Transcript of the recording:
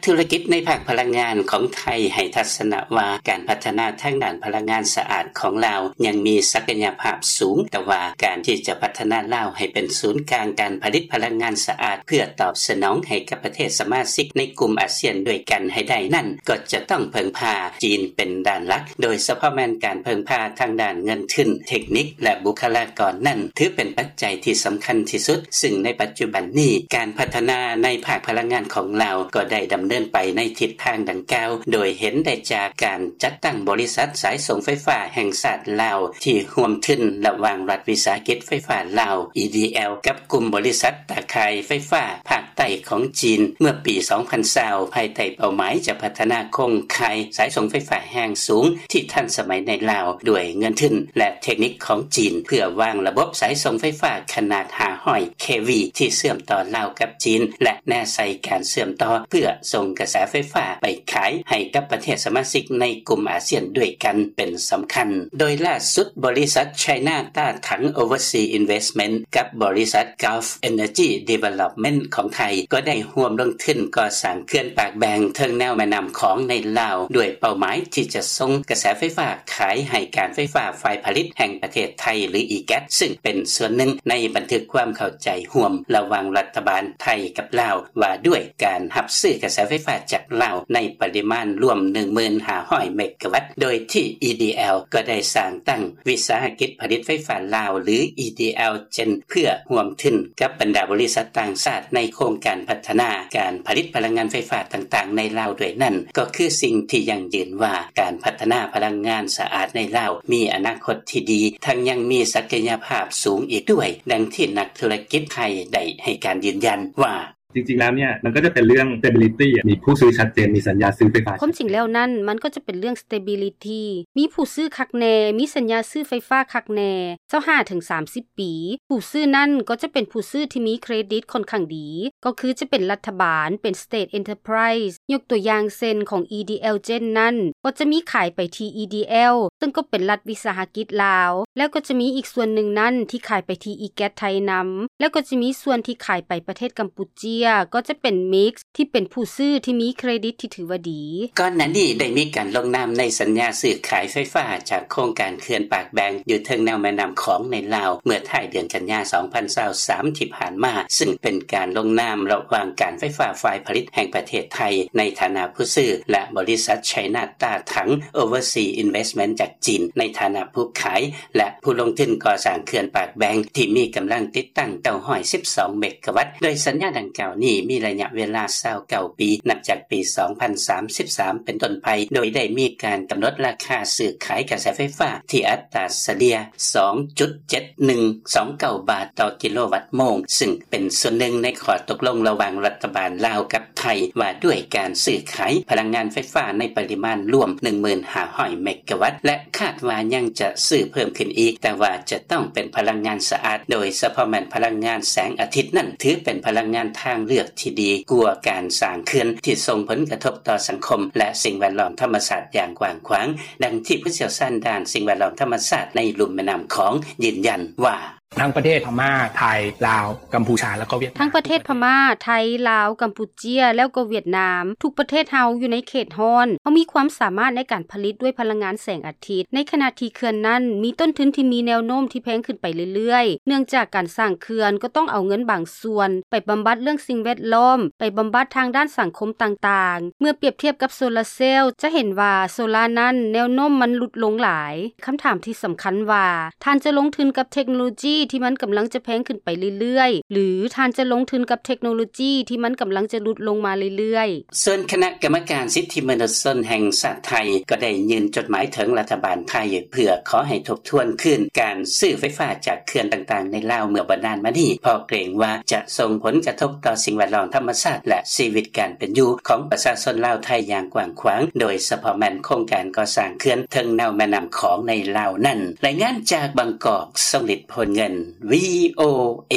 ທຸລະກິດໃນພາກພະລັງງານຂອງໄທໃຫ້ທັດສະນະວ່າ ການພັດທະນາທາງດ້ານພະລັງງານສະອາດຂອງລາວຍັງມີສັກກະຍະພາບສູງ, ແຕ່ວ່າການທີ່ຈະພັດທະນາລາວໃຫ້ເປັນສູນກາງການຜະລິດພະລັງງານສະອາດ ເພື່ອຕອບສະໜອງໃຫ້ກັບປະເທດສະມາຊິກໃນກຸ່ມອາຊຽນດ້ວຍກັນໃຫ້ໄດ້ນັ້ນ ກໍຈະຕ້ອງເພິ່ງພາຈີນເປັນດ້ານຫຼັກ, ໂດຍສະເພາະແມ່ນການເພິ່ງພາທາງດ້ານເງິນທຶນ, ເທັກນິກ ແລະ ບຸກຄະລາກອນນັ້ນ ຖືເປັນປັດໄຈທີ່ສຳຄັນທີ່ສຸດ, ຊຶ່ງໃນປັດຈຸບັນນີ້ ການພັດທະນາໃນພາກພະລັງງານຂອງລາວກໍໄດ້ດຳເນີນໄປໃນທິດທາງດັ່ງກ່າວ, ໂດຍເຫັນໄດ້ຈາກການຈັດຕັ້ງບໍລິສັດສາຍສົ່ງໄຟຟ້າແຫ່ງຊາດລາວ ທີ່ຮ່ວມທຶນລະຫວ່າງລັດວິສາຫະກິດໄຟຟ້າລາວ EDL ກັບກຸ່ມບໍລິສັດຕາຂ່າຍໄຟຟ້າພາກໃຕ້ຂອງຈີນ ເມື່ອປີສອງພັນຊາວ ພາຍໃຕ້ເປົ້າໝາຍຈະພັດທະນາໂຄງຂ່າຍສາຍສົ່ງໄຟຟ້າແຮງສູງທີ່ທັນສະໄໝໃນລາວ ດ້ວຍເງິນທຶນ ແລະ ເທັກນິກຂອງຈີນ ເພື່ອວາງລະບົບສາຍສົ່ງໄຟຟ້າຂະໜາດຫ້າຮ້ອຍ KV ທີ່ເຊື່ອມຕໍ່ລາວກັບຈີນ ແລະ ແນໃສ່ການເຊື່ອມຕໍ່ເພື່ອສົ່ງກະແສໄຟຟ້າໄປຂາຍໃຫ້ກັບປະເທດສະມາຊິກໃນກຸ່ມອາຊຽນດ້ວຍກັນເປັນສຳຄັນ. ໂດຍລ່າສຸດ ບໍລິສັດ China Tatang Overseas Investment ກັບບໍລິສັດ Gulf Energy Development ຂອງໄທ ກໍໄດ້ຮ່ວມລົງທຶນກໍ່ສ້າງເຂື່ອນປາກແບງເທິງແນວແມ່ນ້ຳຂອງໃນລາວ ດ້ວຍເປົ້າໝາຍທີ່ຈະສົ່ງກະແສໄຟຟ້າຂາຍໃຫ້ການໄຟຟ້າຝ່າຍຜະລິດແຫ່ງປະເທດໄທ ຫຼື EGAT ຊຶ່ງເປັນສ່ວນໜຶ່ງໃນບັນທຶກຄວາມເຂົ້າໃຈຮ່ວມລະຫວ່າງລັດຖະບານໄທກັບລາວ ວ່າດ້ວຍການຮັບຊື້ກະແສໄຟຟ້າຈາກລາວໃນປະລິມານລວມໜຶ່ງໝື່ນຫ້າຮ້ອຍເມກະວັດ ໂດຍທີ່ EDL ກໍໄດ້ສ້າງຕັ້ງວິສາຫະກິດຜະລິດໄຟຟ້າລາວ ຫຼື EDL Gen ເພື່ອຮ່ວມທຶນກັບບັນດາບໍລິສັດຕ່າງຊາດໃນໂຄງການພັດທະນາການຜະລິດພະລັງງານໄຟຟ້າຕ່າງໆໃນລາວດ້ວຍນັ້ນ ກໍຄືສິ່ງທີ່ຢັ້ງຢືນວ່າ ການພັດທະນາພະລັງງານສະອາດໃນລາວມີອະນາຄົດທີ່ດີ ທັງຍັງມີສັກກະຍະພາບສູງອີກດ້ວຍ, ດັ່ງທີ່ນັກທຸລະກິດໄທໄດ້ໃຫ້ການຢືນຢັນວ່າ: จริงๆแล้วเนี่ย มันก็จะเป็นเรื่อง stability อะ มีผู้ซื้อชัดเจน มีสัญญาซื้อไฟฟ้า ຄວາມຈິງແລ້ວນັ້ນ ມັນກໍຈະເປັນເລື່ອງ stability ມີຜູ້ຊື້ຄັກແນ່ ມີສັນຍາຊື້ໄຟຟ້າຄັກແນ່ ຊາວຫ້າເຖິງສາມສິບປີ. ຜູ້ຊື້ນັ້ນກໍຈະເປັນຜູ້ຊື້ທີ່ມີເຄຣດິດຂ້ອນຂ້າງດີ ກໍຄືຈະເປັນລັດຖະບານ ເປັນ state enterprise. ຍົກຕົວຢ່າງເຊັ່ນ ຂອງ EDL Gen ນັ້ນ ກໍຈະມີຂາຍໄປທີ່ EDL ເຊິ່ງກໍເປັນລັດວິສາຫະກິດລາວ ແລ້ວກໍຈະມີອີກສ່ວນໜຶ່ງນັ້ນທີ່ຂາຍໄປທີ່ EGAT ໄທນຳ ແລ້ວກໍຈະມີສ່ວນທີ່ຂາຍໄປປະເທດກຳປູເຈຍ ກໍຈະເປັນ Mix ທີ່ເປັນຜູ້ຊື້ທີ່ມີເຄຣດິດທີ່ຖືວ່າດີ. ກ່ອນໜ້ານີ້ໄດ້ມີການລົງນາມໃນສັນຍາຊື້ຂາຍໄຟຟ້າຈາກໂຄງການເຂື່ອນປາກແບງຢູ່ເທິງແນວແມ່ນ້ຳຂອງໃນລາວ ເມື່ອທ້າຍເດືອນກັນຍາ ສອງພັນຊາວສາມ ທີ່ຜ່ານມາ, ຊຶ່ງເປັນການລົງນາມລະຫວ່າງການໄຟຟ້າຝ່າຍຜະລິດແຫ່ງປະເທດໄທ ໃນຖານະຜູ້ຊື້ ແລະ ບໍລິສັດ China Tatang Overseas Investment ຈາກຈີນ ໃນຖານະຜູ້ຂາຍ ແລະ ຜູ້ລົງທຶນກໍ່ສ້າງເຂື່ອນປາກແບງ ທີ່ມີກຳລັງຕິດຕັ້ງ ເກົ້າຮ້ອຍສິບສອງ ເມກະວັດ, ໂດຍສັນຍາດັ່ງກ່າວນີ້ມີໄລຍະເວລາ ຊາວເກົ້າປີ ນັບຈາກປີ ສອງພັນສາມສິບສາມ ເປັນຕົ້ນໄປ, ໂດຍໄດ້ມີການກຳນົດລາຄາຊື້ຂາຍກະແສໄຟຟ້າທີ່ອັດຕາສະເລ່ຍ ສອງຈຸດເຈັດໜຶ່ງສອງເກົ້າ ບາດຕໍ່ກິໂລວັດໂມງ, ຊຶ່ງເປັນສ່ວນໜຶ່ງໃນຂໍ້ຕົກລົງລະຫວ່າງລັດຖະບານລາວກັບໄທ ວ່າດ້ວຍການຊື້ຂາຍພະລັງງານໄຟຟ້າໃນປະລິມານລວມ ໜຶ່ງໝື່ນຫ້າຮ້ອຍ ເມກະວັດ ແລະ ຄາດວ່າຍັງຈະຊື້ເພີ່ມຂຶ້ນອີກ, ແຕ່ວ່າຈະຕ້ອງເປັນພະລັງງານສະອາດ, ໂດຍສະເພາະແມ່ນພະລັງງານແສງອາທິດນັ້ນ ຖືເປັນພະລັງງານທາງເລືອກທີ່ດີກວ່າການສ້າງເຂື່ອນທີ່ສົ່ງຜົນກະທົບຕໍ່ສັງຄົມ ແລະ ສິ່ງແວດລ້ອມທຳມະຊາດຢ່າງກວ້າງຂວາງ, ດັ່ງທີ່ຜູ້ຊ່ຽວຊານດ້ານສິ່ງແວດລ້ອມທຳມະຊາດໃນລຸ່ມແມ່ນ້ຳຂອງຢືນຢັນວ່າ: ທັງປະເທດພະມ້າ ໄທ ລາວ ກຳພູຊາ ແລ້ວກໍຫວຽດນາມ ທັງປະເທດພະມ້າ ໄທ ລາວ ກຳປູເຈຍ ແລ້ວກໍຫວຽດນາມ ທຸກປະເທດເຮົາຢູ່ໃນເຂດຮ້ອນ, ເຮົາມີຄວາມສາມາດໃນການຜະລິດດ້ວຍພະລັງງານແສງອາທິດ. ໃນຂະນະທີ່ເຂື່ອນນັ້ນມີຕົ້ນທຶນທີ່ມີແນວໂນ້ມທີ່ແພງຂຶ້ນໄປເລື້ອຍໆ, ເນື່ອງຈາກການສ້າງເຂື່ອນກໍຕ້ອງເອົາເງິນບາງສ່ວນໄປບຳບັດເລື່ອງສິ່ງແວດລ້ອມ, ໄປບຳບັດທາງດ້ານສັງຄົມຕ່າງໆ. ເມື່ອປຽບທຽບກັບໂຊລາເຊວ ຈະເຫັນວ່າໂຊລານັ້ນແນວໂນ້ມມັນຫຼຸດລົງຫຼາຍ. ຄຳຖາມທີ່ສຳຄັນວ່າ ທ່ານຈະລົງທຶນກັບເທັກໂນໂລຈີທີ່ມັນກຳລັງຈະແພງຂຶ້ນໄປເລື້ອຍໆ ຫຼື ທ່ານຈະລົງທຶນກັບເທັກໂນໂລຈີທີ່ມັນກຳລັງຈະຫຼຸດລົງມາເລື້ອຍໆ? ສ່ວນຄະນະກຳມະການສິດທິມະນຸດຊົນແຫ່ງຊາດໄທ ກໍໄດ້ຍື່ນຈົດໝາຍເຖິງລັດຖະບານໄທ ເພື່ອຂໍໃຫ້ທົບທວນຄືນການຊື້ໄຟຟ້າຈາກເຂື່ອນຕ່າງໆໃນລາວເມື່ອບໍ່ນານມານີ້, ເພາະເກງວ່າຈະສົ່ງຜົນກະທົບຕໍ່ສິ່ງແວດລ້ອມທຳມະຊາດ ແລະ ຊີວິດການເປັນຢູ່ຂອງປະຊາຊົນລາວໄທຢ່າງກວ້າງຂວາງ, ໂດຍສະເພາະແມ່ນໂຄງການກໍ່ສ້າງເຂື່ອນເທິງແນວແມ່ນ້ຳຂອງໃນລາວນັ້ນ. ລາຍງານຈາກບາງກອກ, ຊົງລິດ ໂພນເງິນ ວີໂອເອ.